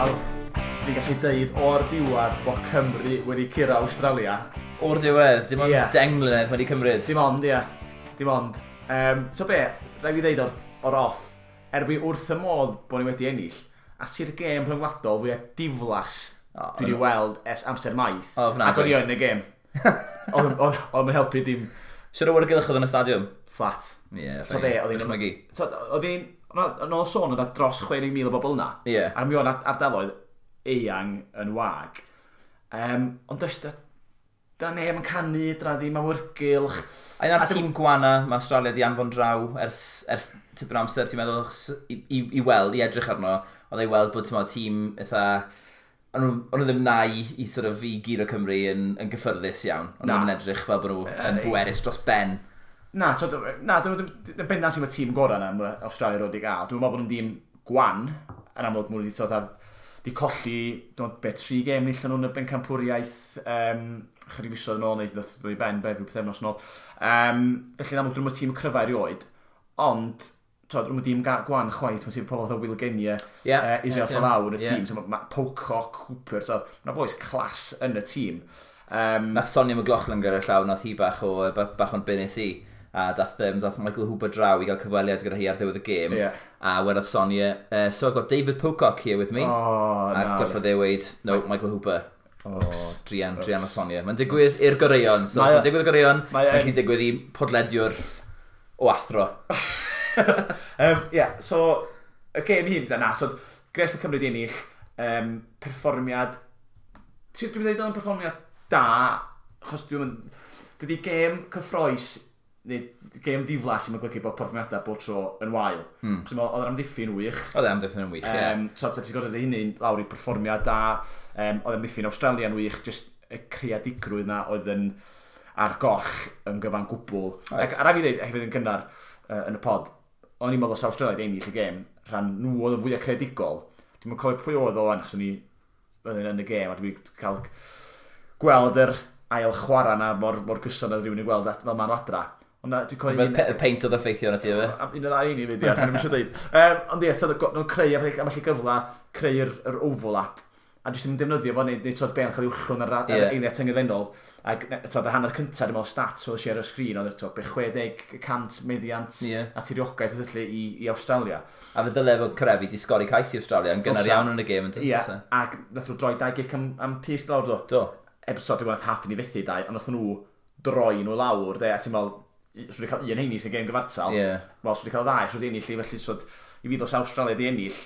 Wel, fi'n gallu deud o'r diwedd bod Cymru wedi curo Awstralia. O'r diwedd, dim ond 10 mlynedd mae wedi cymryd. Dim ond, ie. Dim ond. So be, rhaid fi ddeud o'r off, er fi wrth y modd bod ni wedi ennill, a ti'r gêm rhyngwladol fwyaf diflas dwi wedi weld ers amser maith. Ofnadwy. Ac o'n i yn y gêm. Oedd yn helpu dim. Siwr o awyrgylch oedd yn y stadiwm? Flat. Ie, So be, oedd hi'n dychmygu. So, oedd hi'n... Yn ôl sôn, oedd 'na dros 60,000 o bobl yna. A mi oedd ardaloedd eang yn wag. Ond does, dyna neb yn canu, dyna ddim awyrgylch. A un o'r tîm gwana mae Australia di anfon draw ers tipyn o amser, ti'n meddwl, achos i weld, i edrych arno, oedd ei weld bod, ti'n meddwl, tîm eitha... O'n nhw ddim na i sort of, i guro Cymru yn gyffyrddus iawn. O'n nhw Na. ddim yn edrych fel bod nhw yn bwerus dros ben. Na, so, na, dyn nhw ddim bendant sy'n y tîm gorau na mae Australia roed i gael. Dwi'n meddwl bod nhw'n dîm gwan, yn amlwg mwyn wedi sort of, di colli, dwi'n meddwl, be, tri gêm nillon nhw'n y bencampwriaeth, chydig fisoedd yn ôl, neu ddoth i ben, be, rhyw pythefnos yn ôl. Felly yn amlwg, dyn nhw'n tîm cryfa erioed, ond, so, dyn nhw'n dîm gwan chwaith, mae'n sy'n pobl fatha Will Genia, Israel Folau yn y tîm, so, ma Pocock, Cooper, so, mae'n bois class yn y tîm. Nath Sonia McLaughlin gyda llaw, nath hi bach o'n bunes i. A dath Michael Hooper draw i gael cyfweliad gyda hi ar ddiwedd y gêm. A wedodd Sonia, "So I've got David Pocock here with me." Oh, A na. gorfod e weud, "No, Michael Hooper." Oops. Druan, druan o Sonia. Mae'n digwydd i'r goreuon. So, os mae'n digwydd i'r goreuon, mae'n gallu digwydd i podlediwr o athro. Yeah, so, y gêm hyn, na, so, gres mae Cymru di ennill, perfformiad, dwi'n dweud oedd yn perfformiad da, achos dwi'n mynd, dydy gêm cyffroes, neu gêm ddiflas sy'n golygu bod perfformiadau bob tro yn wael. So, oedd yr amddiffyn wych. Oedd e amddiffyn yn wych, ie. So, ti'n gorfod hynny lawr i perfformiad da, oedd amddiffyn Australia'n wych, just y creadigrwydd na oedd yn ar goll yn gyfan gwbl. Ac a rhaid fi dweud, hefyd yn gynnar yn y pod, o'n i'n meddwl os Australia wedi ennill y gêm, rhan nhw oedd yn fwyaf creadigol. Dwi'n cofio pwy oedd o wan, achos o'n i oedd yn y gêm, a dwi'n cael gweld yr ail chwarae na mor gyson oedd rhywun yn gweld fel ma'n adra. Ond na, dwi'n cofio Fel y peint oedd effeithio arno ti, efe? Am un o ddau ni fydd, ie, dwi'n eisiau dweud. Ond ie, so nhw'n creu am allu gyfla, creu'r yr overlap, a jyst yn defnyddio fo, neu twod ben cael ei wllwn ar eiliad tyngedfennol. Ac twod, y hanner cyntaf, dwi'n meddwl stats oedd ar y sgrin, oedd twod, be 60% meddiant a tiriogaeth oedd felly i Australia. A fe ddyle fod Kerevi di sgori cais i Australia yn gynnar Dylsa. iawn yn y gêm. Yn Ie, dylsa? ac nath nhw droi dau gic am pys lawr, do. Do. Eb, so, dwi'n meddwl nath Halfpenny fethu dau, ond nath nhw droi nhw lawr, de, a ti'n meddwl, swn i cael un heini sy'n gêm gyfartal. Wel, swn i cael ddau, swn i ennill i, felly, so, i fi dos Australia di ennill,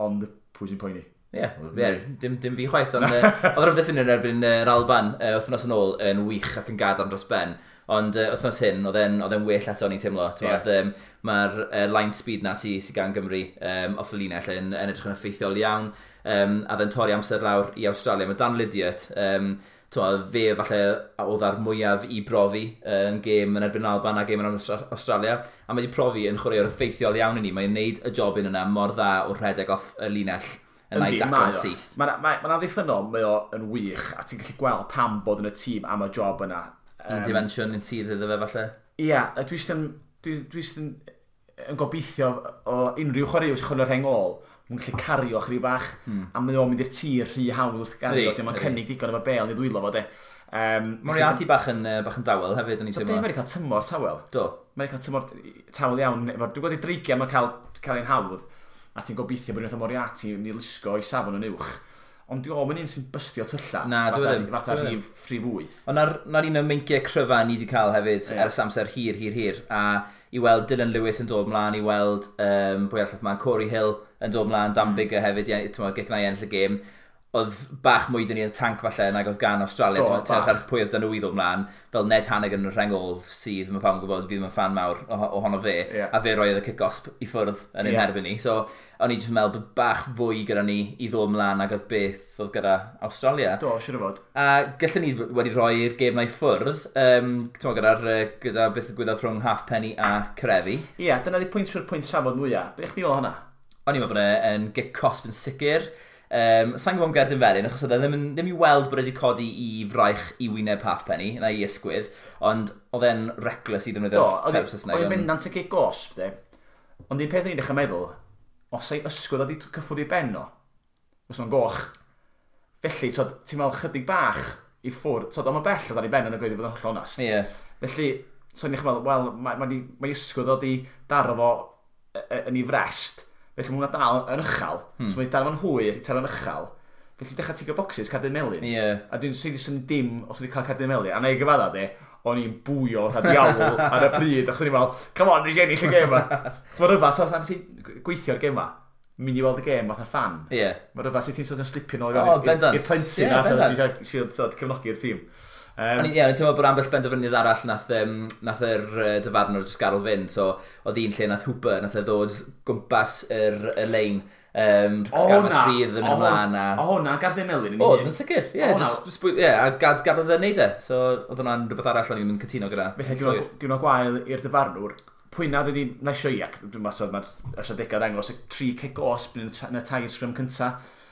ond pwy sy'n poeni? Ie, yeah, dim fi chwaith, ond oedd yr amddiffyn yn erbyn yr Alban wythnos yn ôl yn wych ac yn gadarn dros ben. Ond wythnos hyn, oedd e'n well eto ni'n teimlo. Ie. Mae'r line speed na sy gan Gymru off y linell yn edrych yn effeithiol iawn. A oedd e'n torri amser lawr i Australia. Mae Dan Lydiate, t'mo, fe falle oedd ar mwyaf i brofi yn gêm yn erbyn Alban a gêm yn Australia. A mae wedi profi yn chwaraewr effeithiol iawn i ni. Mae'n neud y jobyn yna mor dda o rhedeg off y linell yn ei mae daclo'n o. syth. Mae'n ma amddiffynnol, mae o yn wych, a ti'n gallu gweld pam bod yn y tîm am y job yna. Un dimensiwn yn sydd iddo fe falle. Ie, a dwi jyst yn, dwi jyst yn gobeithio o unrhyw chwaraewr sy'n chwarae'r rheng ôl, mae'n gallu cario chydig bach, a mae o'n mynd i'r tir rhy hawdd wrth gario, dim ond cynnig digon efo bel i ddwylo fo, de. Moriarty bach yn dawel hefyd, o'n i'n So be, teimlo. mae wedi cael tymor tawel. Do. Mae wedi cael tymor tawel iawn. Efo, dwi'n gweld i dreigiau mae'n cael ein hawdd, a ti'n gobeithio bod unwaith o Moriarty yn ei lusgo i safon yn uwch. Ond di o'm yn un sy'n bystio tylla. Na, dyw e ddim. Fatha Dyw e ddim. rhif 8. Ond na'r un o'r meinciau cryfa ni wedi cael hefyd ers amser hir, hir, hir. A i weld Dylan Lewis yn dod mlaen, i weld pwy arall mlaen, Corey Hill yn dod mlaen, Dan Biggar hefyd, i, ti'n gic na i ennill y gêm. Oedd bach mwy dyn ni yn tank falle nag oedd gan Australia. Do, Ti'n bach. ar pwy oedd dyn nhw i ddod mlaen. Fel Ned Hanigan yn y rheng ôl sydd, mae pawb yn gwybod, fi ddim yn fan mawr ohono fe. A fe roedd y kick-off i ffwrdd yn ein herbyn ni. So, o'n i jyst yn meddwl bod bach fwy gyda ni i ddod mlaen nag oedd beth oedd gyda Australia. Do, siwr o fod. A gallen ni wedi rhoi'r gêm na i ffwrdd, t'mo, gyda beth ddigwyddodd rhwng Halfpenny a Kerevi. Ie, dyna di pwynt siwr pwynt safod mwyaf. Be chdi o hwnna? O'n i'n meddwl bod e'n gic cosb yn sicr. Sa'n gwybod am gerdyn felyn, achos oedd e ddim i weld bod e wedi codi i fraich i wyneb Halfpenny, na i ysgwydd, ond oedd e'n reckless i Do, ddefnyddio'r term Saesneg. oedd hi'n bendant y gic gosb, de. Ond un peth o'n i'n dechrau meddwl, os ei ysgwydd oedd wedi cyffwrdd i ben o, Fysa o'n goch. Felly, ti'n meddwl chydig bach i ffwrdd, ond mae bell o dan i ben yn y gweud i fod yn hollol onast. Yeah. Felly, so ni'n meddwl, wel, mae ysgwydd o di daro fo yn ei frest, felly mae hwnna dal yn uchel. So mae dal fo'n hwyr i taro'n uchel. Felly dechrau tigo boxes, cardyn melyn. Yeah. A dwi'n sydd sy'n dim os wedi cael cardyn melyn. A na i gyfadda de, o'n i'n bwyo fatha diawl ar y pryd. Achos o'n i'n meddwl, come on, nes i ennill y gêm ma. So mae rhyfedd, so am ti'n gweithio'r gêm ma, mynd i weld y gêm fatha fan. Yeah. Mae rhyfedd sydd ti'n sort of slipio nôl i'r plentyn na, sy'n cefnogi'r tîm. O'n i'n teimlo bod ambell benderfyniad arall nath yr dyfarnwr jyst gadael fynd, so oedd un lle nath Hooper, nath e ddod gwmpas yr lein, sgarmes rhydd yn mynd ymlaen. O hwnna, gardyn melyn yn un. Oedd, yn sicr, ie, a gadael e neud e, so oedd hwnna'n rhywbeth arall o'n i'n cytuno gyda. Felly, diwrnod gwael i'r dyfarnwr, pwy na wedi nesio i, ac dwi'n meddwl mae'r ystadegau dangos y 3 cic osb yn y tair sgrym cynta,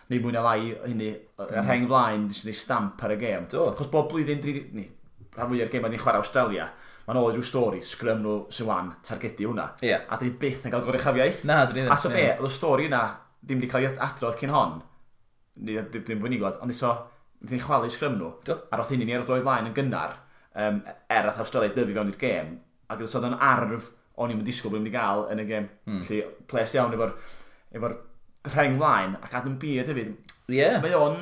neu mwy na lai hynny, y rheng flaen, jyst yn ei stamp ar y gêm. Achos bob blwyddyn, rhan fwyaf o'r gêm ni'n chwarae Australia, mae'n ôl rhyw stori, sgrym nhw sy'n wan, targedu hwnna. Yeah. A dyn ni byth yn cael goruchafiaeth. Na, dyn ni ddim. A to be, oedd y stori yna ddim wedi cael ei adrodd cyn hon, ddim bod ni'n gwybod, ond iso, ni'n chwalu sgrym nhw. Do. A roedd hynny ni ar y droed flaen yn gynnar, er ath Australia dyfu fewn i'r gêm, ac oedd yn arf o'n i'n disgwyl bod ni'n gael yn y gêm. Felly, ples iawn efo'r rheng flaen, ac Adam Beard hefyd. Yeah. Mae o'n...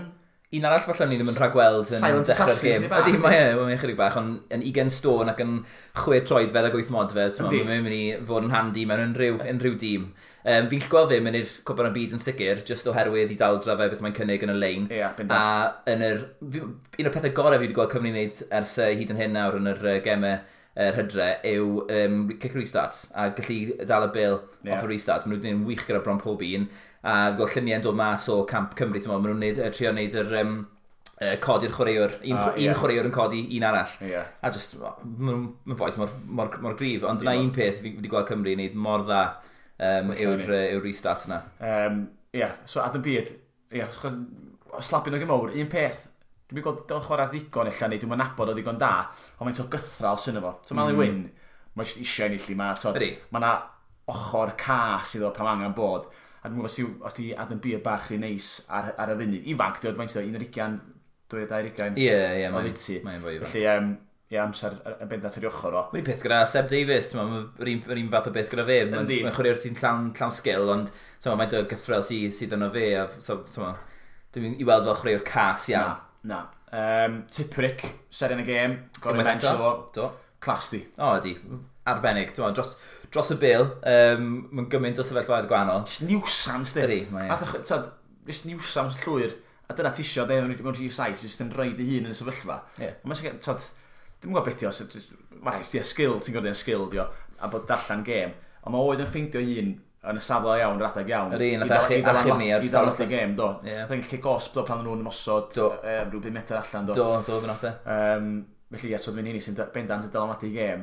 Un arall falle ni ddim yn rhagweld yn dechrau'r gêm. Ydy, mae'n chydig bach, ond yn 20 stôn ac yn 6 troedfedd ac 8 modfedd, mae'n mynd i fod yn handi mewn unrhyw dîm. Fi'n gallu gweld fe mynd i'r Cwpan y Byd yn sicr, just oherwydd i daldra fe beth mae'n cynnig yn y lein. Ie, bendant. A yn yr, un o'r pethau gorau fi wedi gweld Cymru wneud ers hyd yn hyn nawr yn yr gemau yr hydre yw kick restart a gallu dal y bil off y restart. Maen nhw wedi gwneud yn wych gyda bron pob un, a gweld lluniau'n dod mas o camp Cymru, maen nhw'n trio wneud yr codi'r chwaraewr, un chwaraewr yn codi un arall. Yeah. A just, mae'n boes mor gryf, ond dyna un peth fi wedi gweld Cymru wneud mor dda yw'r restart yna. So Adam Beard, slapio nhw gymawr, un peth, dwi'n gweld o'n chwarae ddigon ella, neu dwi'n nabod o ddigon da, ond mae'n to gythral sy'n efo. So Mali Wyn, mae'n jyst eisiau ennill i ma. Mae yna ochr cas iddo pan angen bod. A dwi'n gwybod os di Adam Beard bach rhy neis ar y funud. Ifanc, dwi'n meddwl, 21, 22. Ie, mae'n fwy ifanc. Felly, ie, amser yn bendant ar ei ochr o. Mae'n peth gyda Seb Davies, mae'r un fath o beth gyda fe. Mae'n chwaraewr sy'n llawn sgil, ond mae'n dod gythrel sydd yno fe. Dwi'n i weld fel chwaraewr cas iawn. Na. Tipuric, seren y gêm, gorau bench o. Do. Clas di. O, ydi. Arbennig. Dros y bil, mae'n gymaint o sefyllfaoedd gwahanol. Just nuisance, di. Ydi, mae e. Just nuisance llwyr. A dyna ti isio, mewn rhif 7, just yn rhaid ei hun yn y sefyllfa. Yeah. Mae'n dwi'n gwybod beth i os, mae'n rhaid, di skill, ti'n gwybod skill, di o, a bod darllen gêm. Ond mae oedd yn ffeindio hun yn y safle iawn, yr adeg iawn. Yr un, nath achub ni ar i ddal y gêm, do. Nath ennill cic osb, do, pan nhw'n ymosod, rhyw 5 metr allan, do. Do, fe nath e. Felly, ie, so dwi'n hynny sy'n bendant yn dylanwadu gêm.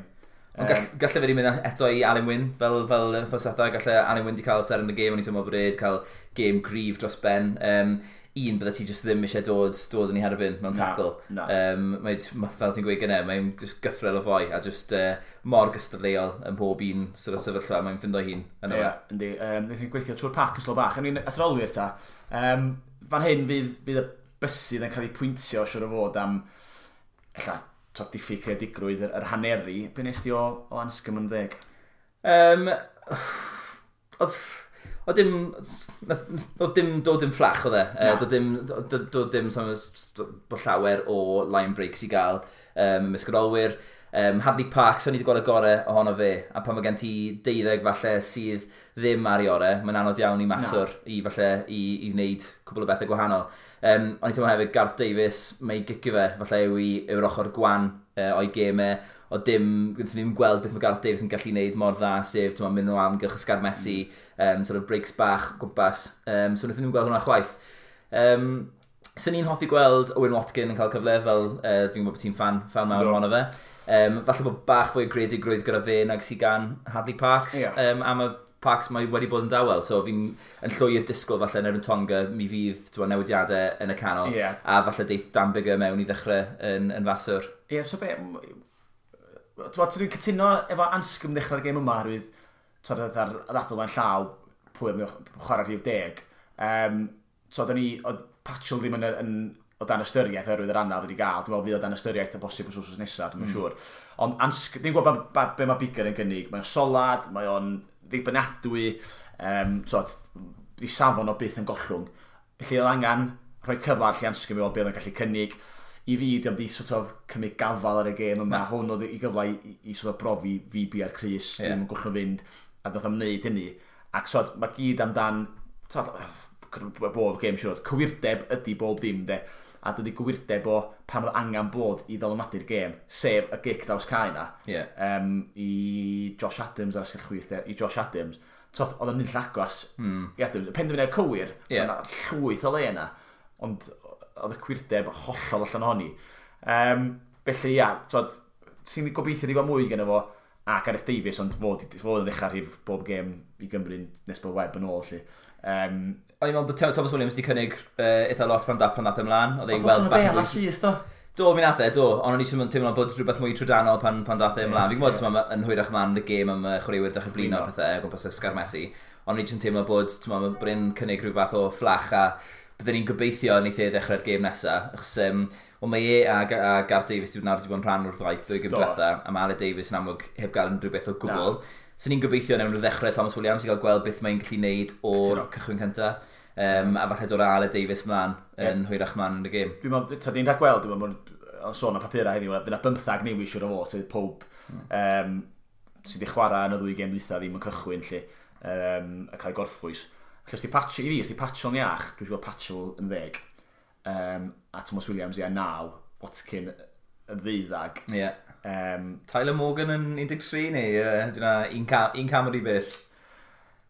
Ond galle fe wedi mynd eto i Alun Wyn, fel wythnos diwetha, galle Alun Wyn wedi cael seren y gêm, o'n i'n teimlo bod e wedi cael gêm gryf dros ben. Un, bydde ti just ddim eisiau dod yn ei herbyn mewn tackle. Na. Mae, fel ti'n gweud gynne, mae'n just gythrel o foi a just mor gystadleuol yn pob un sort of sefyllfa, mae'n ffindo hun yno fe. Ie, yndi. Wnaethon ni gweithio trwy'r pac yn slo bach. I mean, atrolwyr ta, fan hyn fydd y bysydd yn cael ei pwyntio siwr o fod am ella diffyg creadigrwydd yr haneri. Be nes di o Anscombe yn 10? Oedd dim fflach oedd e. Doedd dim bod llawer o line breaks i gael ymysg yr olwyr. Hadley Parks, o'n i wedi gweld y gorau ohono fe, a pan mae gen ti 12 falle sydd ddim ar ei orau, mae'n anodd iawn i maswr i falle i wneud cwbl o bethau gwahanol. O'n i'n teimlo hefyd Garth Davies, mae ei gicio fe, falle yw'r ochr gwan o'i gemau, o dim, gwnaethon ni ddim gweld beth mae Garth Davies yn gallu wneud mor dda, sef mynd o amgylch y sgarmesu, sort of breaks bach gwmpas, so wnaethon ni ddim gweld hwnna chwaith. Swn i'n hoffi gweld Owen Watkin yn cael cyfle, fel fi'n gwybod bod ti'n fan mawr ohono fe. Falle bod bach fwy o greadigrwydd gyda fe nag sydd gan Hadley Parks. Yeah. A mae Parks mae wedi bod yn dawel, so fi'n yn llwyr disgwyl falle yn erbyn Tonga, mi fydd newidiadau yn y canol. Yeah. A falle deith Dan Biggar mewn i ddechrau yn faswr. Ie, yeah, so be... Dwi'n cytuno efo Anscombe ddechrau'r gêm yma, oherwydd ar ddadl fan llaw pwy am chwarae rhif 10. So, oedd Patchell ddim yn o dan ystyriaeth oherwydd yr anaf wedi gael. Dwi'n meddwl fydd o dan ystyriaeth o bosib wythnos nesaf, dwi'n siŵr. Ond dwi'n gwybod be mae Biggar yn gynnig. Mae o'n solad, mae o'n ddibynadwy, so, di safon o byth yn gollwng. Felly oedd angen rhoi cyfle ar lle Anscombe i weld be oedd yn gallu cynnig. I fi, diolch di sort of cymryd gafal ar y gêm yma. Hwn oedd i gyfle i sort of brofi fi bi ar Cris, ddim yn gollwng fynd, a ddoth am wneud hynny. Ac so, mae gyd amdan, so, bob gêm siŵr, cywirdeb ydy bob dim, de. A dydy gywirdeb o pan oedd angen bod i ddylanwadu'r gêm, sef y gic draws cae na, i Josh Adams ar asgell chwith, i Josh Adams. So, oedd o'n mynd agos i Adams. Y penderfyniad cywir, yeah, llwyth o le yna, ond oedd y cwirdeb hollol allan ohoni. Felly, ia, so, ti'n gobeithio di gweld mwy gen fo, a Gareth Davies, ond fod yn ddechrau rhif bob gêm i Gymru nes bod Webb yn ôl, lle. O'n i'n meddwl bod Thomas Williams wedi cynnig eitha lot pan nath ymlaen. Oedd e'n weld bach yn syth, do? Do, mi nath e, do. Ond o'n i teimlo bod rhywbeth mwy trydanol pan dath e ymlaen. Fi'n gwybod, yn hwyrach ymlaen y gêm am chwaraewyr dechrau blino a pethau o gwmpas y sgarmesu. Ond o'n i jyst yn teimlo bod, bod e'n cynnig rhyw fath o fflach a byddwn ni'n gobeithio wneith e ddechrau'r gêm nesaf. Achos, wel, mae e a Gareth Davies wedi bod yn rhan o'r ddwy gêm diwetha, a mae Aled Davies yn amlwg heb gael unrhyw beth o gwbl. So ni'n gobeithio newn nhw ddechrau Thomas Williams i gael gweld beth mae'n gallu neud o'r cychwyn cyntaf. A falle dod â Aled Davies mlaen yn hwyrach mlaen yn y gêm. Dwi'n meddwl, ta di'n rhagweld, dwi'n meddwl, sôn am papurau heddiw, fydd 'na 15 newid siŵr o fod, sydd pob sydd wedi chwarae yn y ddwy gêm dwytha ddim yn cychwyn, lle, a cael ei gorffwys. Felly, os di Patchell, i fi, os di Patchell yn iach, dwi'n siŵr Patchell yn 10, a Thomas Williams ia 9, Watkin yn 12. Yeah. Tyler Morgan yn 13 neu dyna un cam o'r i bell.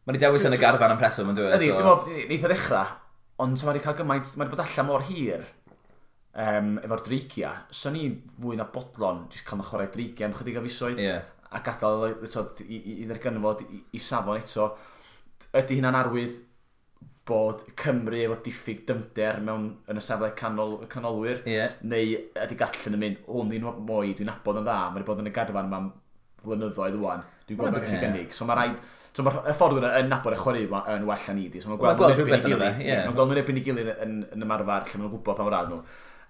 Mae wedi dewis yn y garfan am reswm yn dweud. Ydy, dwi'n meddwl, neith o ddechrau, ond mae wedi cael gymaint, mae wedi bod allan mor hir efo'r dreigia. So ni fwy na bodlon, jyst cael chwarae dreigia am chydig o fisoedd, a gadael i ddarganfod i safon eto. Ydy hynna'n arwydd bod Cymru efo diffyg dymder mewn yn y safle canolwyr, neu ydy Gatland yn mynd, hwn di'n mwy, dwi'n nabod yn dda, mae wedi bod yn y garfan yma am flynyddoedd ŵan, dwi'n gwybod beth gallu gynnig. So mae rhaid, so mae'r ffordd yna yn nabod y chwarae yn well na ni di. So mae'n gweld rhywbeth yn yna. Mae'n gweld nhw'n erbyn ei gilydd yn ymarfer, lle maen nhw'n gwybod pa mor rad nhw.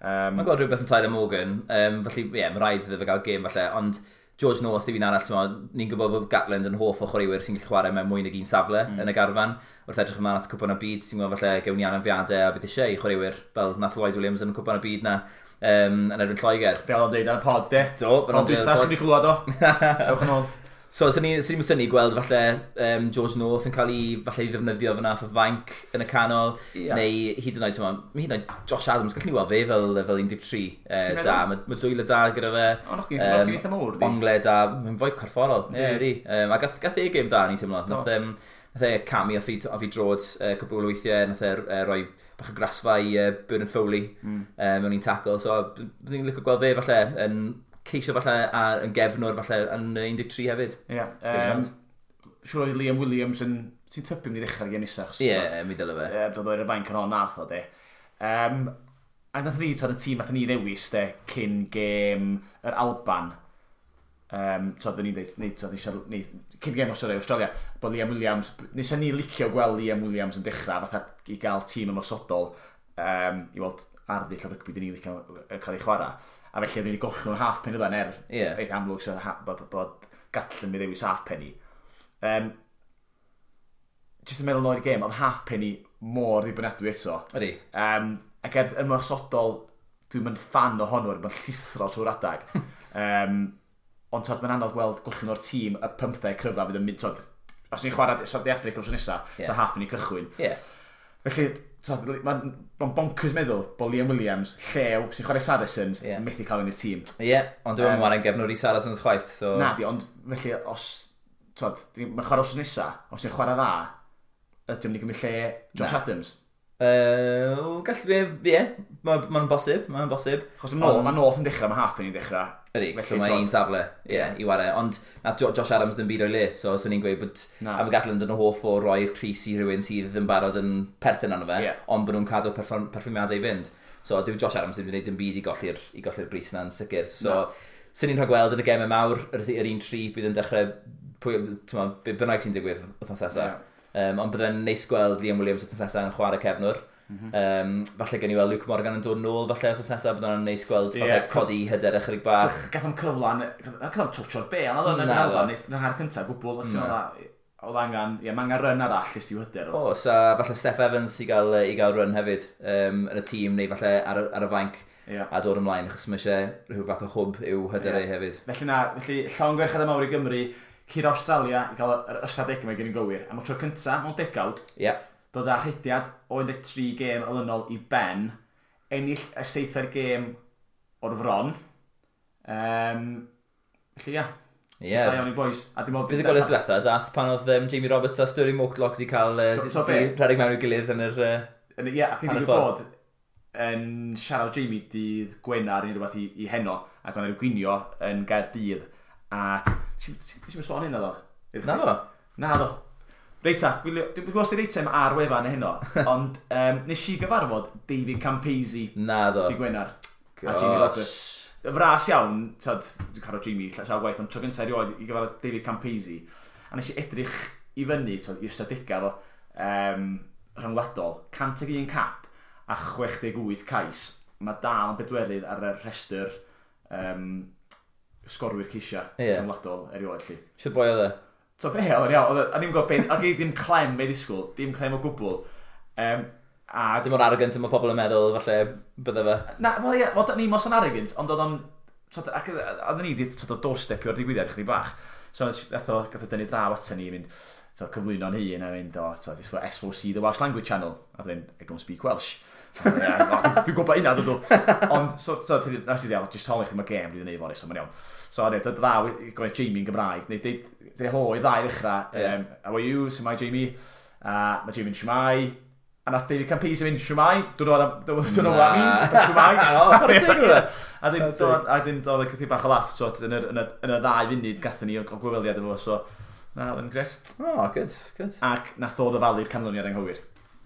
Mae'n gweld rhywbeth yn Tyler Morgan, felly ie, mae rhaid iddo fe gael gêm falle, ond George North yw un arall, ni'n gwybod bod Gatland yn hoff o chwaraewyr sy'n gallu chwarae mewn mwy nag un safle yn y garfan. Wrth edrych ymlaen at Cwpan y Byd, ti'n gwybod falle gewn ni anafiadau a bydd eisiau i chwaraewyr fel nath Lloyd Williams yn Cwpan y Byd na yn erbyn Lloegr. Fel o'n deud ar y pod, de? Do, fel o'n deud ar y pod. Ond dwi'n glwad o. Ewch yn ôl. So, sy'n ni'n synnu gweld falle George North yn cael ei, falle ei ddefnyddio fyna off y fainc yn y canol, neu hyd yn oed, hyd yn oed Josh Adams, gallwn ni weld fe fel 13 da, mae dwylo da gyda fe. O, nog eitha mawr, di. Ongle da, mae'n fwy corfforol, ie, di. A gath e gêm da, ni'n teimlo. Nath e camu off i drod cwpl o weithiau, nath e roi bach o grasfa i Bernard Foley mewn un tackle, so byddwn ni'n licio gweld fe falle yn ceisio falle yn gefnwr falle yn 13 hefyd. Ie. Siŵr oedd Liam Williams yn... Ti'n tybio mynd i ddechrau'r gêm nesaf? Ie, mi dyle fe. Dod o'r fainc yn hon nath o, de. A nath ni, y tîm nath ni ddewis, de, cyn gêm yr Alban. Ni'n dweud, cyn gêm Australia, bod Liam Williams... Nes ni licio gweld Liam Williams yn dechrau, fatha i gael tîm ymosodol, i weld arddull o rygbi dyn ni licio cael ei chwarae. A felly oedden ni wedi gollwng halfpenny oedd er reit amlwg so bod Gatland mi ddewis halfpenny. Jyst yn meddwl nôl i'r gêm, oedd halfpenny mor ddibynadwy eto. Ydy. Ac er ymosodol, dwi'n mynd fan ohono, mae'n llithro trwy'r adag. Ond tod, mae'n anodd gweld gollwng o'r tîm y 15 cryfa fydd yn mynd, tod, os ni'n chwarae De Affrica wrth nesaf, so halfpenny cychwyn. Felly, mae'n bonkers meddwl bod Liam Williams, llew, sy'n chwarae Saracens, methu cael yn i'r tîm. Ie, ond dwi'n chwarae'n gefnwr i Saracens chwaith. So... Na di, ond felly, os, tod, mae'n chwarae wrth nesaf, os ni'n chwarae dda, ydy o'n i gymryd lle Josh Adams? Gallu, ie, mae'n bosib, mae'n bosib. Chos mae North yn dechrau, mae Halfpenny yn dechrau. Ydy, so mae un safle, ie, i ware. Ond nath Josh Adams ddim byd o'i le, so swn i'n gweud bod am y Gatland yn hoff o roi'r crys i rhywun sydd yn barod yn perthyn arno fe, ond bod nhw'n cadw perfformiadau i fynd. So dyw Josh Adams ddim wedi gwneud dim byd i golli'r bris na'n sicr. So swn i'n rhagweld yn y gemau mawr, yr un tri bydd yn dechrau, pwy, bynnag sy'n digwydd wythnos nesaf. Ond byddai'n neis gweld Liam Williams wythnos nesaf yn chwarae cefnwr. Falle gen i weld Luke Morgan yn dod nôl, falle wythnos nesaf, bydd hwnna'n neis gweld, falle codi hyder ychydig bach. So, gath o'n cyfle, gath o'n touch o'r bêl, na ddo, yn yn hanner cyntaf, gwbl, oedd angen, ie, mae angen run arall jyst i'w hyder o. Oes, a falle Steph Evans i gael run hefyd yn y tîm, neu falle ar y fainc a dod ymlaen, achos mae eisiau rhyw fath o hwb i'w hyder yeah. hefyd. Felly na, felly llongyfarchiadau mawr i Gymru, curo Australia i gael yr ystadegau mae gen i'n gywir. Am y tro cyntaf mewn degawd, dod â rhediad o 13 gêm olynol i ben, ennill y seithfed gêm o'r fron. Felly ia. Da iawn i boys. A dim ond Buddugoliaeth diwetha, dath pan oedd Jamie Roberts a Stirling Mortlock wedi cael di rhedeg mewn i'w gilydd yn yr Ie, ac ni'n digwydd bod yn siarad Jamie dydd Gwener neu rhywbeth i heno, ac o'n rhyw gwinio yn Gaerdydd. Ac ti'n sôn hynna ddo? Na ddo? Na ddo. Reit ta, dwi'n gwybod sy'n eitem ar wefan heno, ond nes i gyfarfod David Campese Na ddo. Dydd Gwener. A Jamie Roberts. Fras iawn, tyd, dwi'n cael Jamie sawl gwaith, ond tro gyntaf erioed i gyfarfod David Campese. A nes i edrych i fyny, tyd, i ystadegau fo, rhyngwladol, 101 cap a 68 cais. Mae dal yn bedwerydd ar y rhestr sgorwyr ceisiau rhyngwladol erioed. Lly. Sut boi oedd e? So be, oedd o'n iawn, a ni'n gwybod be, ac ddim clem be ddisgwyl, dim clem o gwbl. A Dim o'r arrogant mae pobl yn meddwl, falle, bydde fe. Na, wel ie, wel, ni mos yn arrogant, ond oedd o'n... Tod, ac oedden ni wedi tod, doorstepio'r digwyddiad chydig bach. So, gath o dynnu draw ato ni, mynd, so, cyflwyno'n hun a mynd, "O, so, this for S4C, the Welsh Language Channel." A dwi'n, "I don't speak Welsh." "Yeah, dwi'n gwybod hynna, dydw." Ond, so, nes i ddeud, "Just holi chi, mae gêm dwi'n neud fory, so mae'n iawn." So, ne, dod ddaw i gofyn Jamie yn Gymraeg, neu deud helo i ddau ddechrau, "How are you, shwmae Jamie?" A mae Jamie'n "Shwmae." A nath David Campese mynd, "Shwmae, don't know what that means, but shwmae." O, chwarae teg iddo fe. A dyn doedd y chydig bach o laff, so, yn y 2 funud gathon ni o gyfweliad efo, so, na, oedd yn gret. O, good, good. Ac nath o ddyfalu'r canlyniad anghywir.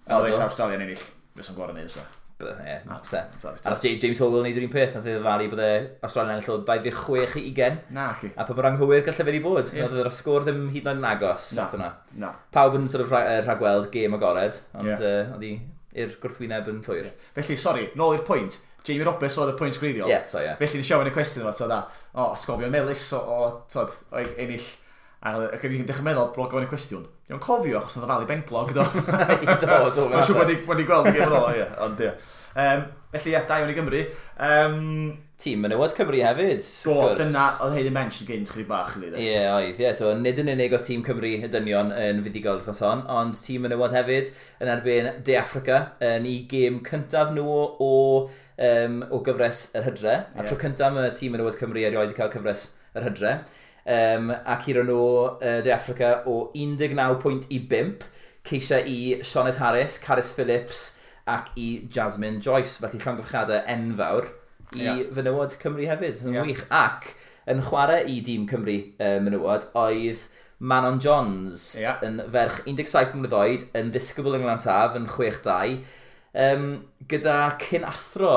O, Oedd do. Australia'n ennill, fysa'n gorau neud, so. Bydde, ie, Na, se. so, A nath James Horwill wneud yr un peth, nath ei ddyfalu bydde Australia'n ennill o 26 i 20. Na, ci. A pa mor anghywir gallai fe wedi bod. Ie. Oedd yr sgôr ddim hyd yn oed yn agos. Na. At hwnna. Na. Pawb yn sort of rhagweld gêm agored, ond oedd hi i'r gwrthwyneb yn llwyr. Felly, sori, nôl i'r pwynt. Jamie Roberts oedd y pwynt gwreiddiol. Ie, so ie. Felly, nes i ofyn y cwestiwn yma, tod, o, atgofion melys o, tod, o ennill. A ac o'n i'n dechrau meddwl bod gofyn y cwestiwn. Dwi'n cofio achos oedd o falu benglog, do. Do, Mae'n siŵr bod wedi gweld y gêm yn ôl, ie. Ond, ie. Felly, ie, da iawn i Gymru. Tîm menywod Cymru hefyd, Do, wrth gwrs. dyna oedd Hayley Mensch yn gynt chydig bach, really. Ie, oedd, ie. So, nid yn unig oedd tîm Cymru y dynion yn fuddugol wythnos hon, ond tîm menywod hefyd yn erbyn De Affrica yn ei gêm cyntaf nhw o gyfres yr hydre. A tro cyntaf mae tîm menywod Cymru erioed wedi cael cyfres yr hydre. A curo nhw De Affrica o 19 pwynt i 5, ceisiau i Sioned Harris, Carys Phillips ac i Jasmine Joyce. Felly llongyfarchiadau enfawr i fenywod Cymru hefyd. Yn wych. Ac yn chwarae i dîm Cymru menywod oedd Manon Johns yn ferch 17 mlynedd oed, yn ddisgybl yng Nglan yn 6-2, gyda cyn athro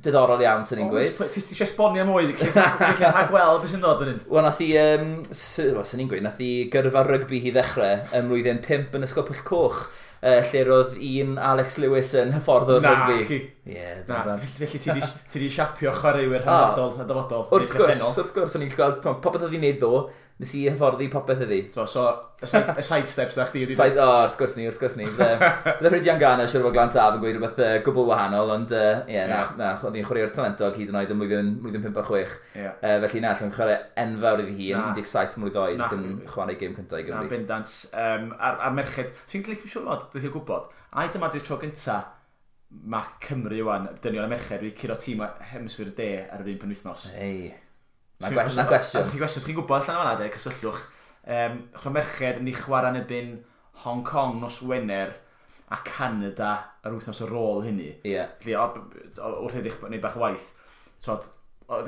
diddorol iawn, sy'n ni'n gweud. Ti eisiau esbonio mwy, gallu rhagweld beth sy'n dod yn un. Wel, nath i, wel, sy'n ni'n gweud, nath i gyrfa rygbi hi ddechrau ym mlwyddyn 5 yn Ysgol Pwll Coch, lle roedd un Alex Lewis yn hyfforddwr Na, rygbi. ci. Ie, Na, bendant. felly ti di siapio chwaraewyr rhyngwladol y dyfodol. Wrth neu gwrs, presennol. wrth gwrs, o'n i'n gweld popeth oedd hi'n neud ddo, nes i hyfforddi popeth iddi. So, y side steps na chdi ydi. Side, o, wrth gwrs ni, wrth gwrs ni. Bydde Rhydian Garner siwr o fod Glan Taf yn gweud rhywbeth gwbl wahanol, ond ie, na, na, oedd hi'n chwaraewr talentog hyd yn oed yn mlwyddyn 5 a 6. Felly na, lle chwarae enfawr iddi hi yn Na. 17 mlwydd oed Na. ac yn chwarae gêm cyntaf i Na, Gymru. bendant. A'r merched, sy'n licio siŵr fod, dwi'n gwybod, ai dyma di'r tro gynta mae Cymru wan, dynion a merched, wedi curo tîm o hemisffer y de ar yr un penwythnos. Ei, na gwestiwn. Chi'n gwestiwn, chi'n gwybod allan o'na, de, cysylltwch. Chwa merched yn mynd i chwarae yn erbyn Hong Kong nos Wener a Canada yr wythnos ar ôl hynny. Felly, wrth edrych wneud bach o waith, so,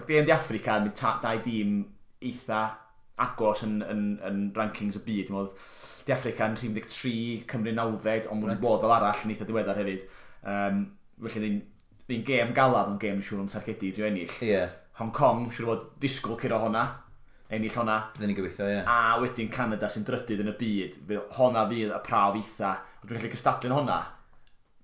De yn De Affrica yn mynd dau dîm eitha agos yn rankings y byd. Dwi'n meddwl, De Affrica yn rhif 13, Cymru 90, ond mwyn bod fel arall yn eitha diweddar hefyd. Felly, ni'n gêm galad, ond gêm siŵr o'n targedu i drio ennill. Hong Kong, siŵr o fod disgwyl curo honna, ennill honna. Byddwn ni'n gobeithio, ie. A wedyn Canada sy'n drydydd yn y byd, fydd honna fydd y prawf eitha. Ond dwi'n gallu cystadlu yn honna,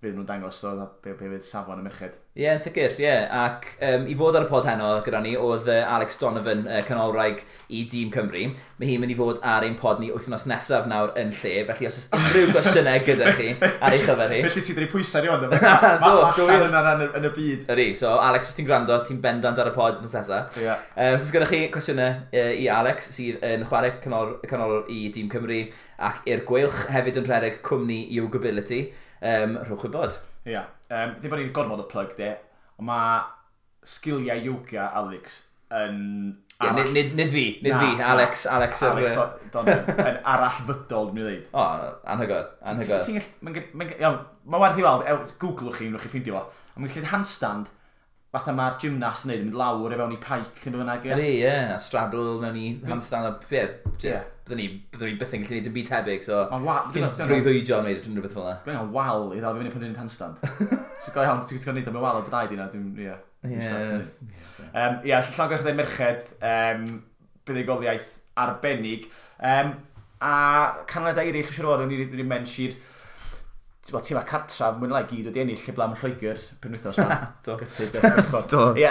Fydd nhw'n dangos so, be fydd safon y merched. Ie, yeah, yn sicr, ie. Yeah. Ac i fod ar y pod heno gyda ni oedd Alex Donovan, canolwraig i Dîm Cymru. Mae hi'n mynd i fod ar ein pod ni wythnos nesaf nawr yn lle, felly os oes unrhyw gwestiynau gyda chi ar ei chyfer hi. Felly ti'n dweud pwysau ni ond, mae allan yna yn y byd. Ydy, so Alex, os ti'n gwrando, ti'n bendant ar y pod wythnos nesaf. Yeah. Os oes gyda chi cwestiynau i Alex, sydd yn chwarae canolwr i Dîm Cymru ac i'r Gweilch, hefyd yn rhedeg cwmni Yogability, rhowch wybod. Ia. Yeah. Ddim bod ni'n gormod o plug de, ond mae sgiliau yoga Alex yn arall. Yeah, nid fi, nid na, fi, Alex. Alex, Alex Donovan, yn arallfydol, dwi'n dweud. O, anhygoel, anhygoel. Mae werth i weld, googlwch chi, wnewch chi ffeindio fo. Ond mae'n gallu handstand, fatha mae'r gymnast yn neud, yn mynd lawr e fewn i pike neu bynnag. Ydy, ie, a straddle mewn i handstand, ie, byddwn ni byth yn gallu gwneud dim byd tebyg, so dwi'n breuddwydio am wneud rhywbeth fel yna. Dwi'n angen wal i ddal fi fyny pan dwi'n handstand. So go iawn, ti'n gwneud am y wal o draed i na, dwi'n, ie. Ie, llongyfarchiadau merched, buddugoliaeth arbennig. A canlyniadau eraill, siŵr o fod, ni'n mention tîm a cartref, mwyn lai gyd wedi ennill heblaw am Lloegr penwythnos yma. Do. Gytid, do. Ie,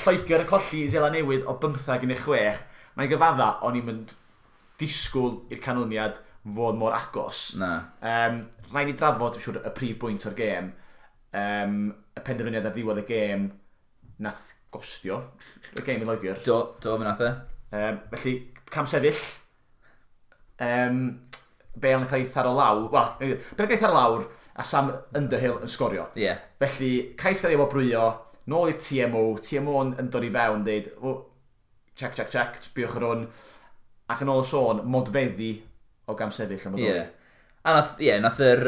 Lloegr yn colli i Seland Newydd o 15-6. Mae'n gyfadda, o'n i'n mynd disgwyl i'r canlyniad fod mor agos. Na. Rhaid ni drafod, dwi'n siŵr, y prif bwynt o'r gêm. Y penderfyniad ar ddiwedd y gêm nath gostio y gêm i Loegr. Do, do, fe nath e. Felly, cam sefyll. Bale yn cael ei tharo lawr. Wel, Bale yn cael ei tharo lawr a Sam Underhill yn sgorio. Yeah. Felly, cais gael ei wobrwyo, nôl i'r TMO, TMO yn dod i fewn, deud, oh, check, check, check, sbiwch ar hwn. Ac yn ôl y sôn, modfeddi o gam sefyll am y yeah. A nath, ie, yeah, nath yr,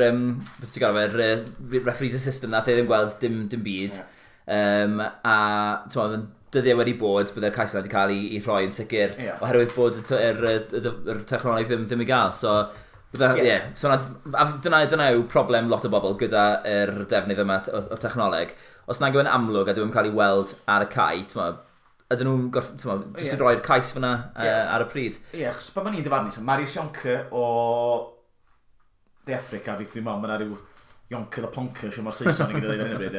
beth ti'n gael fe'r referees assistant, nath e ddim gweld dim byd. Yeah. A, ti'n meddwl, dyddiau wedi bod, byddai'r cais yna wedi cael ei rhoi yn sicr, yeah. Oherwydd bod yr technoleg ddim i gael. So, yeah. Yeah. So dyna yw problem lot o bobl gyda'r defnydd yma o'r technoleg. Os nag yw'n amlwg a dwi'n cael ei weld ar y cae, ti'n meddwl, ydyn nhw'n jyst yn rhoi'r cais fyna ar y pryd. Ie, yeah, achos pan ni'n dyfarnu, so Marius Jonker o De Affrica, fi dwi'n meddwl, mae yna rhyw Jonker the Plonker, siw mor Saeson i gyda dweud ar hyn o bryd.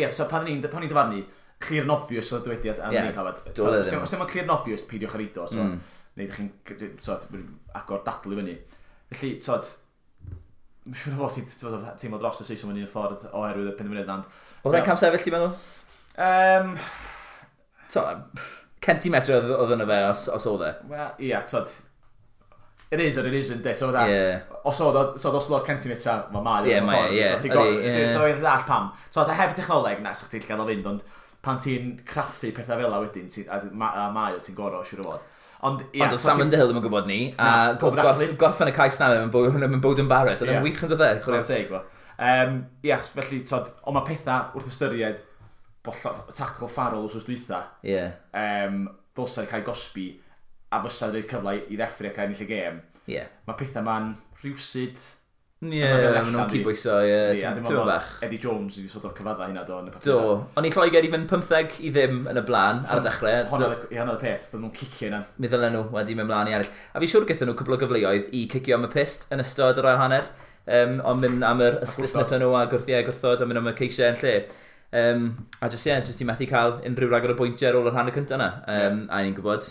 Ie, so pan ni'n dyfarnu, clear and obvious o'r dywediad am ni'n clywed. Os dim ond clear and obvious, peidiwch ar eido, so, neu ydych chi'n agor dadl i fyny. Felly, tod, mae'n siŵr o fod sy'n teimlo dros y Saeson mewn un ffordd oherwydd y penderfyniad. Oedd e'n cam sefyll, ti'n meddwl? Centimetr oedd yna fe os oedd e. Wel, ie, tod, it is or it isn't, de, tod, os oedd o centimetr, mae ie, mae, ie. So ti'n ddall pam. Tod, heb technoleg, na, sa'ch ti'n gael o fynd, ond pan ti'n craffu pethau fel a wedyn, a mae o ti'n gorau, siŵr o fod. Ond oedd Sam Underhill ddim yn gwybod ni, a gorffen y cais na, mae'n bod yn Barrett, oedd e'n wych yn dod e. Chwarae teg, fo. Ie, felly, tod, ond mae pethau wrth ystyried tackle Farrell wrth dwytha, ddylsai cael gosbi a fysa rhoi'r cyfle i ddeffro ac ennill y gêm. Yeah. Mae pethau ma'n rhywsyd. Ie, maen nhw'n cydbwyso, ie, ti'n bach. Eddie Jones wedi sort of cyfadda hynna, do. Do, ond i Lloegr i fynd 15-0 yn y blaen ar y dechrau. Honna oedd y peth, bydden nhw'n cicio yna. Mi ddylen nhw wedi mynd mlaen i ennill. A fi siŵr gaethon nhw cwpl o gyfleoedd i cicio am y pyst yn ystod yr ail hanner, ond mynd am yr ystlysnet nhw a gwrthod a mynd am y ceisiau yn lle. A jyst, ie, jyst i methu cael unrhyw ragor o bwyntiau ar ôl yr hanner cyntaf yna. A ni'n gwybod,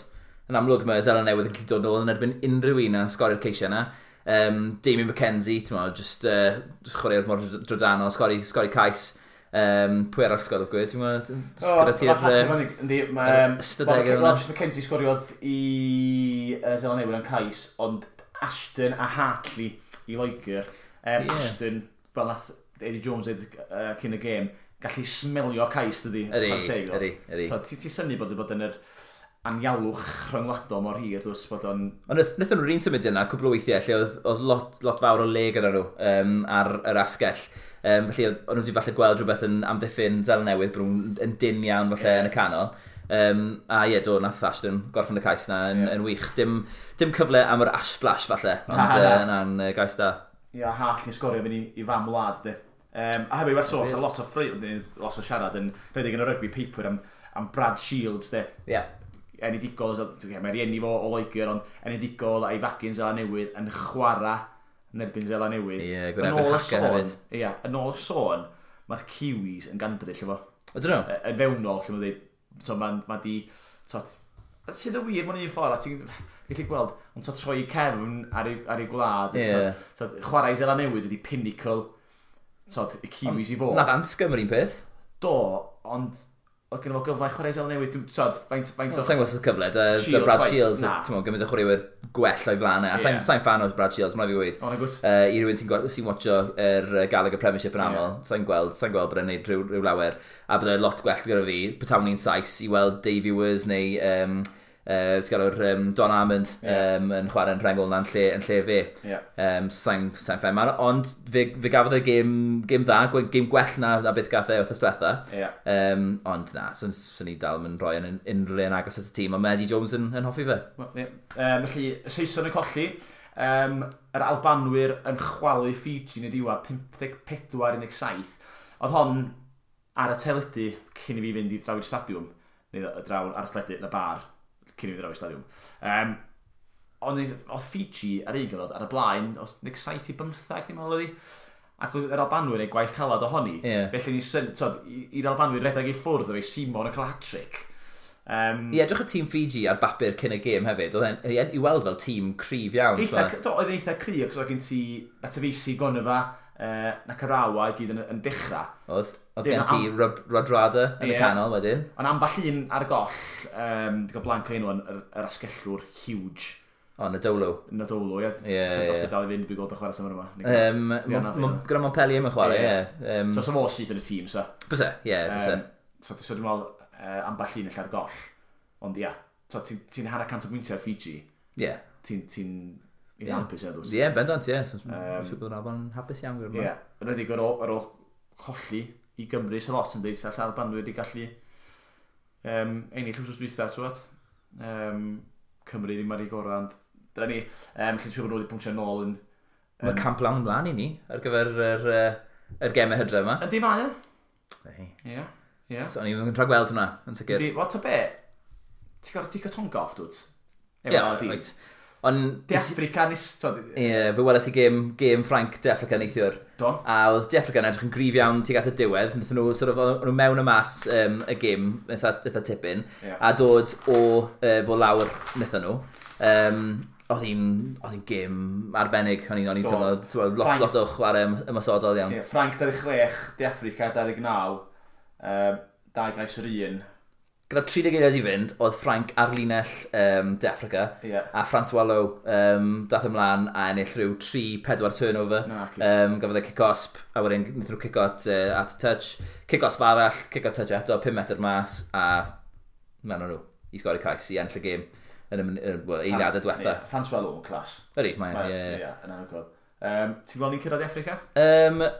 yn amlwg mae Seland Newydd yn gallu dod nôl yn erbyn unrhyw un a sgorio'r ceisiau yna. Damien McKenzie, ti'n meddwl, just chwarae'r mor drydanol, sgori cais. Pwy arall sgoriodd gwyd, ti'n meddwl? Gyda ti'r ystadegau yna. Roger McKenzie sgoriodd i Seland Newydd yn cais, ond Ashton a Hartley i Loegr. Ashton, fel nath Eddie Jones dweud cyn y gêm, gallu smelio cais, dydi? Ydy. So, ti'n synnu bod yn yr anialwch rhyngwladol mor hir, dwi'n bod o'n... Ond wnaethon nhw'r un symud yna, cwpl o weithiau, lle oedd lot fawr o le gyda nhw ar yr asgell. Felly, o'n nhw wedi falle gweld rhywbeth yn amddiffyn Seland Newydd, bod nhw'n yn dyn iawn falle yn y canol. A ie, do, nath Ashton gorffen y cais na yn wych. Dim cyfle am yr ash splash falle, ond na'n gais da. Ie, Hartley sgorio fynd i fam wlad, de. A hefyd, werth sôn, lot o lot o siarad yn rhedeg yn y rygbi paper am Brad Shields, de. Yeah. Enedigol, mae rieni fo o Loegr, ond enedigol a'i fagu'n Seland Newydd yn chwarae yn erbyn Seland Newydd. Ie, gwneud Haka hefyd. Ie, yn ôl y sôn, mae'r Kiwis yn gandryll efo. Ydyn nhw? Yn fewnol, lle mae'n dweud, mae ma di, sydd yn wir mewn un ffordd, a ti'n gallu gweld, ond troi cefn ar ei gwlad, yeah. Chwarae Seland Newydd ydi pinnacle, y Kiwis i fod. Nath Anscombe yr un peth. Do, ond oedd gen fo gyfle chwarae Seland Newydd, faint o... Sa'n gwybod os oedd cyfle, da Brad Shields, ti'n gwybod, gymaint o chwaraewyr gwell o'i flaen e, a yeah. Sa'n fan o Brad Shields, mae'n fi gweud. O, nagos. I rywun sy'n watcho yr Gallagher Premiership yn aml, yeah. Sa'n gweld bod e'n neud rhyw lawer, a byddai lot gwell gyda fi, petawn ni'n Sais, i weld Davey Wers neu Don Armand yn chwarae'n rhengol na'n lle, yn lle fe. Yeah. Sa'n ffen mawr, ond fe gafodd e gêm dda, gêm gwell na beth gath e wythnos diwetha. Yeah. Ond na, swn i dal yn rhoi yn unrhyw le yn agos at y tîm, ond mae Eddie Jones yn hoffi fe. Well, yeah. Felly, y Saeson yn colli, yr Albanwyr yn chwalu Fiji yn y diwedd 54-17. Oedd hon ar y teledu cyn i fi fynd i draw i'r stadiwm, neu draw ar y teledu yn y bar, cyn i fi draw i'r stadiwm. Ond oedd Fiji ar un gyfnod ar y blaen, oedd 17-15, dwi'n meddwl oedd hi. Ac oedd yr Albanwyr ei gwaith calad ohoni. Yeah. Felly ni i'r Albanwyr redeg i ffwrdd o'i Simon yn cael hat-trick. I edrych o tîm Fiji ar bapur cyn y gêm hefyd, oedd e'n i weld fel tîm cryf iawn. Oedd eitha cryf, ac oedd gen ti Matavesi, Goneva, Nakarawa i gyd yn dechrau. Oedd gen ti Rodrada yn y canol wedyn. Ond amball un ar y goll, di gael blanc o enw yn yr asgellwr huge. O, Nadolo. Nadolo, ie. Ie. Os di dal i fynd, dwi'n gweld o chwarae symud yma. Gyda Montpellier mae'n chwarae, ie. So, so fo syth yn y tîm, so. Byse, ie, byse. So, dwi'n meddwl amball un allan ar goll. Ond, ie, ti'n 100 o bwyntiau ar Fiji. Ie. Ti'n eitha hapus, ie, dws. Ie, bendant, ie. Siŵr bod yr Alban hapus iawn gyda. Ie, yn enwedig ar ôl colli i Gymru sy'n lot yn dweud, sy'n Albanwyr wedi gallu ennill wythnos dwytha, ti'n Cymru ddim ar ei gorau, ond dyna ni, felly siŵr bod nhw wedi pwntio nôl yn... Mae camp lawn ymlaen i ni ar gyfer yr gemau hydref yma. Yndi mae e? Ie. Ie. So o'n i'n rhagweld hwnna, yn sicr. Yndi, what a be? Ti'n gorfod ticio Tonga off, dwt? Ie, reit. Ond De Africa nes... Ie, fe weles i gêm Ffrainc De Africa neithiwr. Do. A oedd De Africa yn edrych yn gryf iawn tuag at y diwedd. Nathon nhw, sort of, o'n nhw mewn y mas y gêm eitha tipyn. Yeah. A dod o fo lawr nathon nhw. Oedd hi'n gêm arbennig. O'n i'n teimlo lot o chwarae ymosodol iawn. Yeah, Ffrainc 26, De Africa 29, 2 gais yr un. Gyda 30 eiliad i fynd, oedd Ffrainc ar linell De Africa, yeah. A François Lowe dath ymlaen a ennill rhyw 3-4 turnover. No, gafodd e kick-osp, a wedyn wnaethon nhw kick-o at touch, kick-osp arall, kick-o touch eto, 5 metr mas, a mewn nhw i sgori cais i ennill y gêm yn y eiliadau diwetha. Yeah, François Lowe yn clas. Ydy, mae e. Ie, yn anhygoel. Ti'n gweld ni'n cyrraedd De Africa?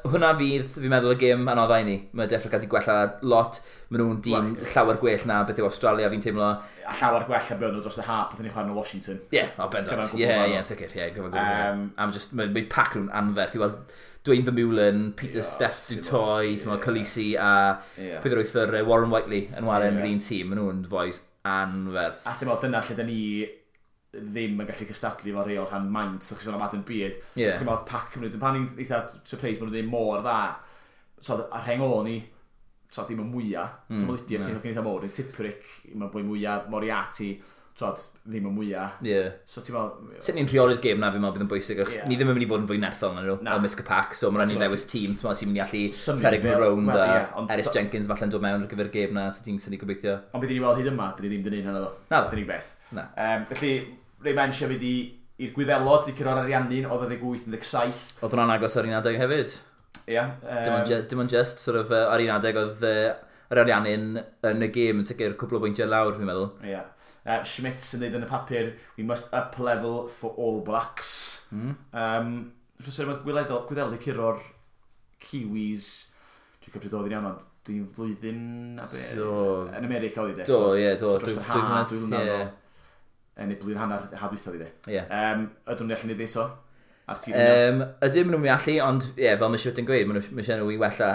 Hwna fydd, fi'n meddwl, y gêm anoddau i ni. Mae De Africa wedi gwella lot. Maen nhw'n dîm llawer gwell na beth yw Australia, fi'n teimlo. A llawer gwell na beth nhw dros y hap, beth ni'n chwarae yn Washington. Ie, o bendant. Ie, ie, sicr. Ie, gyfan gwbl. Am just, mae pac nhw'n anferth. I weld Dwayne Vermeulen, Peter Steph Dutoit, yeah, Khaleesi a Peter Wythor, Warren Whiteley yn chwarae yn yr un tîm. Maen nhw'n fois anferth. A ti'n meddwl, dyna lle da ni ddim yn gallu cystadlu efo rhai o'r rhan maint, ydych chi'n sôn am Adam Beard. Yeah. Ti'n meddwl, pac Cymru, pan ni'n eitha surprised bod nhw'n ddim mor dda. So, ar rheng ôl ni, so, dim y mwyaf. Mm, so, Lydia sy'n eitha mowr, Tipuric, mae'n bwy mwyaf, Moriarty, so, ddim y mwyaf. Yeah. So, ti'n meddwl... Sut ni'n rheoli'r gêm na, fi'n meddwl bydd yn bwysig, achos ni ddim yn mynd i fod yn fwy nerthol na nhw, ymysg y pac, so mae'n rhaid ni ddewis tîm, ti'n meddwl, sy'n mynd i allu rhedeg nhw rownd, a Eris Jenkins falle'n dod mewn ar gyfer y gêm na, so ti'n syni gobeithio. Ond bydd ni weld hyd yma, bydd ni ddim dyn hynny ddo. Na ddo. Dyna beth. Na. Felly, Ray Mensch hefyd i'r Gwyddelod, wedi curo'r Ariannin, oedd 28-17. Oedd hwnna'n agos ar un adeg hefyd. Ie. Dim ond just, sort of, ar un adeg oedd yr Ariannin yn y gêm yn sicr cwpl o bwyntiau lawr, fi'n meddwl. Ie. Schmitz yn dweud yn y papur, we must up level for All Blacks. Mm. Rhywbeth mae Gwyddelod wedi curo'r Kiwis, dwi'n cymryd oedd yn iawn, ond dwi'n flwyddyn a be, yn America oedd i de. Do, ie, do. So dros yr ha, dwy flynedd o. Neu blwyddyn hanner ha dwytha oedd i de. Yeah. Ydyn nhw'n allu neud eto? Ar tîm ydyn nhw'n allu, ond ie, fel mae Schmidt yn gweud, mae eisiau nhw i wella.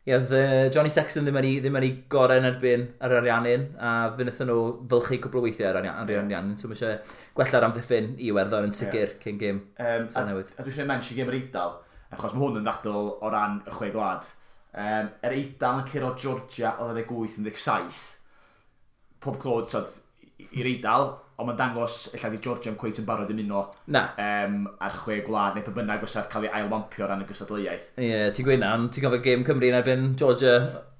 Ie, oedd Johnny Sexton ddim ar ei gorau yn erbyn yr Ariannin, a fe wnaethon nhw fylchu cwpl o weithiau ar Ariannin, so mae eisiau gwella'r amddiffyn i Iwerddon yn sicr cyn gêm Seland Newydd. A dwi eisiau mention gêm yr Eidal, achos mae hwn yn ddadl o ran y chwe gwlad. Yr Eidal yn curo Georgia o 28-17. Pob clod, tod, i'r Eidal, ond mae'n dangos ella di Georgia yn cweit yn barod ymuno Na. Ar chwe gwlad, neu pa bynnag fysa'r cael ei ailwampio o ran y gystadleuaeth. Ie, yeah, ti'n gweud na, ond ti'n cofio gêm Cymru yn erbyn Georgia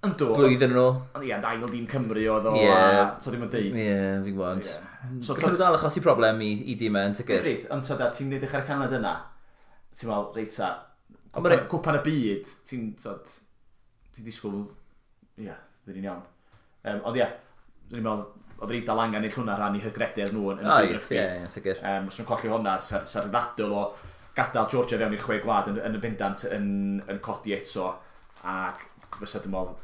Yndw, blwyddyn yn ôl. Ond ie, ond ail dîm Cymru oedd o, a so ddim yn deud. Ie, yeah, fi'n gwybod. Ie. So, Gallen nhw dal achosi problem i dîmau yn sicr. Reit, ond tod, ti'n edrych ar y canlyniad yna, ti'n meddwl, reit ta, Ond ma' cwpan y byd, ti'n, tod, ti'n disgwyl, ie, fydd ni'n iawn. Ond ie, dwi'n meddwl, oedd yr Eidal angen i hwnna rhan i hygrededd nhw yn y byd Ie, rygbi. ie, sicr. Os nhw'n colli hwnna, sa'r ddadl o gadael Georgia fewn i'r chwe gwlad yn y bendant yn codi eto, ac fysa dwi'n meddwl,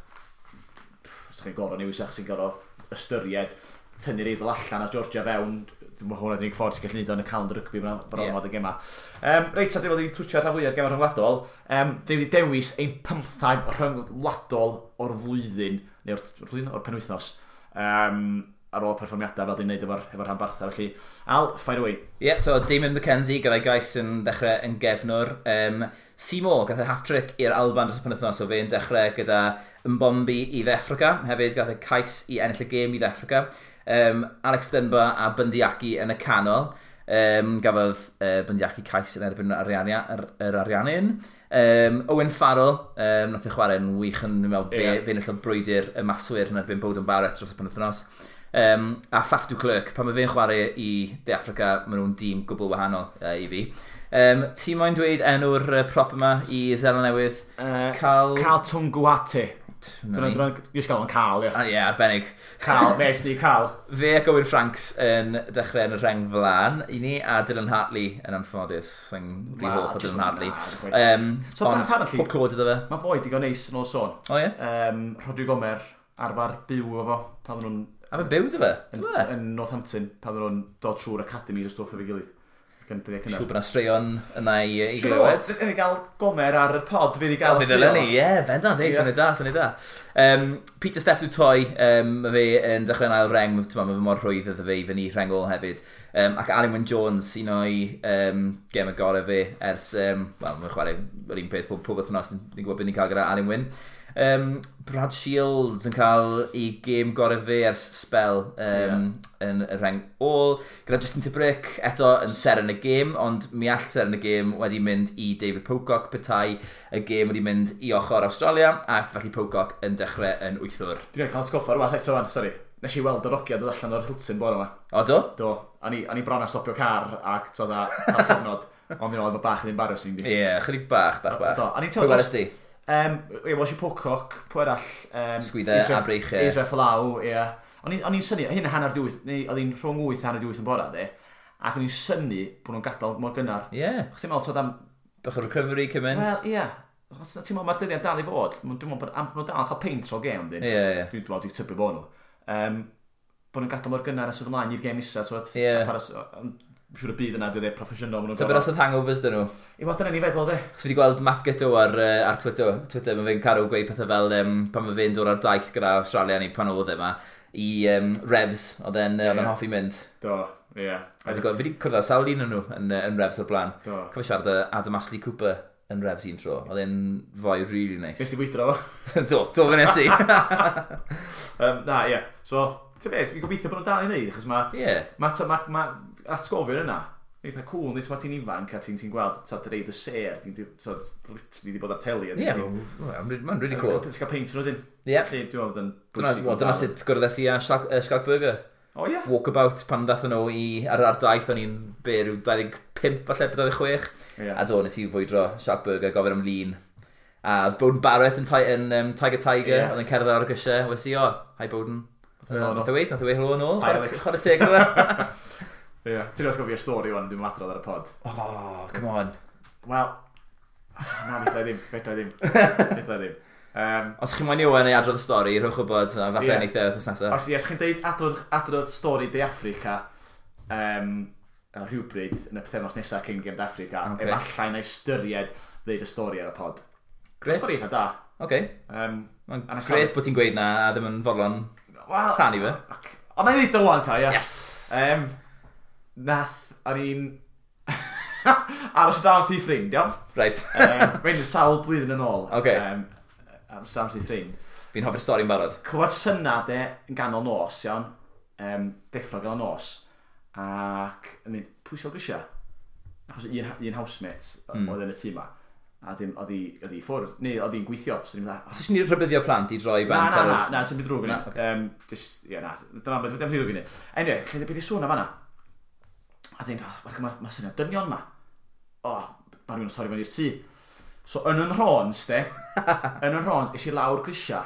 os chi'n gorfod newis achos chi'n gorfod ystyried tynnu'r Eidal allan a Georgia fewn, dwi'n meddwl hwnna 'di'r unig ffordd sy'n gallu neud o yn y calendar rygbi bron ormod y gema. Reit, a dwi'n wedi twtio rhan fwyaf gema rhyngwladol. Dwi'n wedi dewis ein 15 rhyngwladol o'r flwyddyn, neu o'r flwyddyn, o'r penwythnos, ar ôl perfformiadau fel dwi'n neud efo rhanbarthau. Felly, Al, fire away. Ie, yeah, so Damien McKenzie gyda'i gais yn dechrau yn gefnwr. Seymour gath e hat-trick i'r Alban dros y penwythnos, so fe'n dechrau gyda Mbombi i Dde Affrica. Hefyd gath e cais i ennill y gêm i Dde Affrica. Alex Dunbar a Bundee Aki yn y canol. Gafodd Bundee Aki cais yn erbyn yr Ariannin. Owen Farrell, nath e chwarae'n wych yn, dwi'n meddwl, fe enillodd brwydr y maswyr yn erbyn Beauden Barrett dros y penwythnos. A Faf du Klerk, pan mae fe'n chwarae i De Affrica, maen nhw'n dîm gwbl wahanol i fi. Ti moyn dweud enw'r prop yma i Seland Newydd? Carl... Karl Tu'inukuafe. Na ni. Dwi'n just gael o'n Carl, ie. Ah, ie, arbennig. Carl, nes ni Carl. Fe ac Owen Franks yn dechrau yn y rheng flaen i ni, a Dylan Hartley yn anffodus. Sy'n rhy Wel, hoff o just Dylan Hartley. na, chwaith. So, ond apparently- pob clod iddo fe. Mae foi digon neis yn ôl sôn. O ie? Rhodri Gomer arfer byw efo pan oedden nhw'n A fe'n byw dy fe? yn, Dwi fe? yn Northampton, pan oedden nhw'n dod trwy'r academies o stwff efo'i gilydd. Ac yn dyddiau cynnar. Siŵr bod yna straeon yna i Siŵr o glywed. fod, ni gael Gomer ar y pod, fydd i gael Fydd ddylen ni, ie, bendant, ei, syniad da, syniad da. Pieter-Steph du Toit, mae fe yn dechrau'n ail reng, mae fe mor rhwydd iddo fe i fyny rheng ôl hefyd. Ac Alun Wyn Jones, un o'i gem y gorau fe ers, wel, mae'n chwarae yr un peth pob wythnos, ni'n gwybod beth ni'n cael gyda Alun Wyn. Brad Shields yn cael ei gêm gorau fe ers spel yn y rheng ôl. Gyda Justin Tipuric eto yn seren y gêm, ond mi all seren y gêm wedi mynd i David Pocock petai y gêm wedi mynd i ochr Australia, ac felly Pocock yn dechrau yn wythwr. Dwi'n cael atgoffa rhywbeth eto fan, sori. Nes i weld yr ogia dod allan o'r Hilton bore yma. O, do? Do, a ni bron a stopio car ac to'd a cael llofnod. Ond ni'n meddwl, mae bach yn embarrassing di. Ie, yeah, chydig bach, bach, bach. Do, a ni'n Pwy teimlo welest di? Ie, welsh i Pocock, pwy arall? Sgwyddau a breichiau. Israel Folau, ie. O'n i'n synnu, hyn 7:30, neu oedd hi'n rhwng 8 a 7:30 yn bora, de. Ac o'n i'n synnu bod nhw'n gadael mor gynnar. Ie, yeah. Chos ti'n meddwl, t'od am... Bach o recovery cyn mynd. Wel, ie. Achos ti'n meddwl, mae'r dyddiad dal i fod. Dwi'n meddwl bod am nhw dal yn cael peint o'r gêm, dyn. Ie, ie. Dwi'n meddwl, dwi'n tybio bod nhw. Bod nhw'n gadael mor gynnar a sydd ymlaen i'r gêm nesa, t'wod. Ie. A Siŵr y byd yna, dwi'n dweud proffesiynol. ma' nhw'n Tybed os oedd hangovers dyn nhw? I fod dyna ni feddwl, de. Chos fi wedi gweld Matt Giteau ar Twitter, mae fe'n caru gweud pethau fel pan mae fe'n dod ar daith gyda Australia neu pan oedd e yma, i Revs, oedd e'n hoffi mynd. Do, ie. Fi wedi cwrdd â sawl un o'n nhw yn Revs o'r blaen. Do. Cofio siarad â Adam Ashley Cooper yn Revs un tro. Oedd e'n foi really nice. Nes ti fwydro fo? Do, fe nes i. Na, ie. So, ti'n beth, fi'n gobeithio bod nhw'n dal i wneud, achos mae ma atgofion yna, eitha cool, nid mae ti'n ifanc a ti'n gweld, t'od, reid y ser, ti'n t'od, literally di bod ar teli. Ie, mae'n really cool. Ti'n cael peint nhw dyn. Ie. Felly, dwi'n meddwl bod yn Dyna, bwysig. well, dyna sut gwrddais i â Schalk Burger. O, ie. Walkabout pan ddathon nhw ar daith, o'n i'n be, rhyw 25 falle, 26. Ie. A do, nes i fwydro Schalk Burger, gofyn am lun. A oedd Beauden Barrett yn Tiger Tiger, oedd yn cerdded ar y grisiau. Wes i, "O, hi Beauden." Helo. Nath e weud helo yn ôl. Hi, Alex. Chwarae teg iddo fe. Ie. Ti'n atgofio stori wan, dwi'n adrodd ar y pod. Oh, come on. Wel, na, fedra i ddim, fedra i ddim. Fedra i ddim. Os chi'n moyn i Owen ei adrodd y stori, rhowch wybod, a falle Ie. neith e wythnos nesaf. Os, ie, os chi'n deud adrodd stori De Affrica rhywbryd yn y pythefnos nesaf cyn gêm De Affrica, Ocê. efallai na ystyried ddeud y stori ar y pod. Grêt. Stori eitha da. Oce. Mae'n gret bod ti'n gweud na a ddim yn fodlon well, rhannu fe. Ond na i ddweud o wan ta, ia. Yes! Nath, o'n i'n aros o dan ti ffrind, iawn? Right. Mae'n sawl blwyddyn yn ôl. Okay. Aros o dan ti ffrind. Fi'n hoffi'r stori'n barod. Clywed syna de yn ganol nos, iawn. Deffro ganol nos. Ac yn mynd, pwy sy'n grisia? Achos un housemate oedd yn y tŷ ma. A dim, oedd hi ffwrdd, neu oedd hi'n gweithio. So ni'n meddwl... So ni'n rhybuddio plant i droi bant ar... Na, sy'n byd drwg yn ni. Ie, na, dyma beth dim drwg yn ni. Anyway, lle beth i sŵn am fanna? A dweud, oh, mae syniad dynion ma. O, mae rhywun yn torri fewn i'r tŷ. So yn yn rhons, de, yn yn rhons, es i lawr grisia,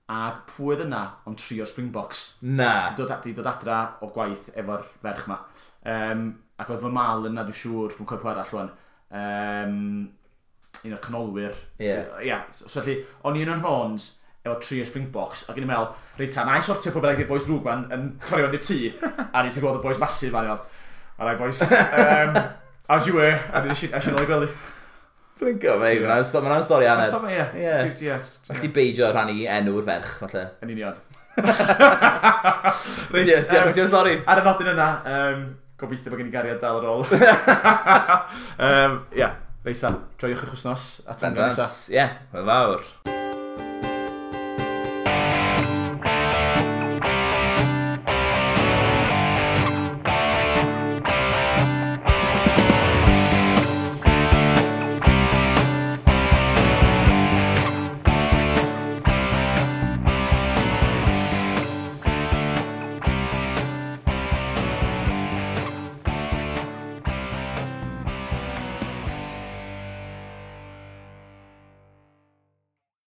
ac pwy oedd yna ond tri o'r Springboks. Na. Di dod adra o gwaith efo'r ferch ma. Ac oedd fy mal yna, dwi'n siŵr, dwi'n cofio arall rwan. Un o'r canolwyr. Ie. Yeah. Yeah, so felly, o'n i yn yn rhons efo tri o'r Springboks, ac o'n i'n meddwl, reit ta, na i sortio pwy bynnag i'r boys drwg ma'n yn torri fewn i'r tŷ, a ni'n gweld y boys massive ma'n i'n all right boys, as you were, a nes i nôl i gwely. Blinko, mate, yeah. Mae'n stori hanner. Mae'n stori, ie. All ti beidio rhannu enw'r ferch, falle. Yn union. Reit, diolch am stori. Ar y nodyn yna, gobeithio bod gen i gariad dal ar ôl. Ie, reit ta, joiwch eich wythnos, a tan nesa. Ie, hwyl fawr.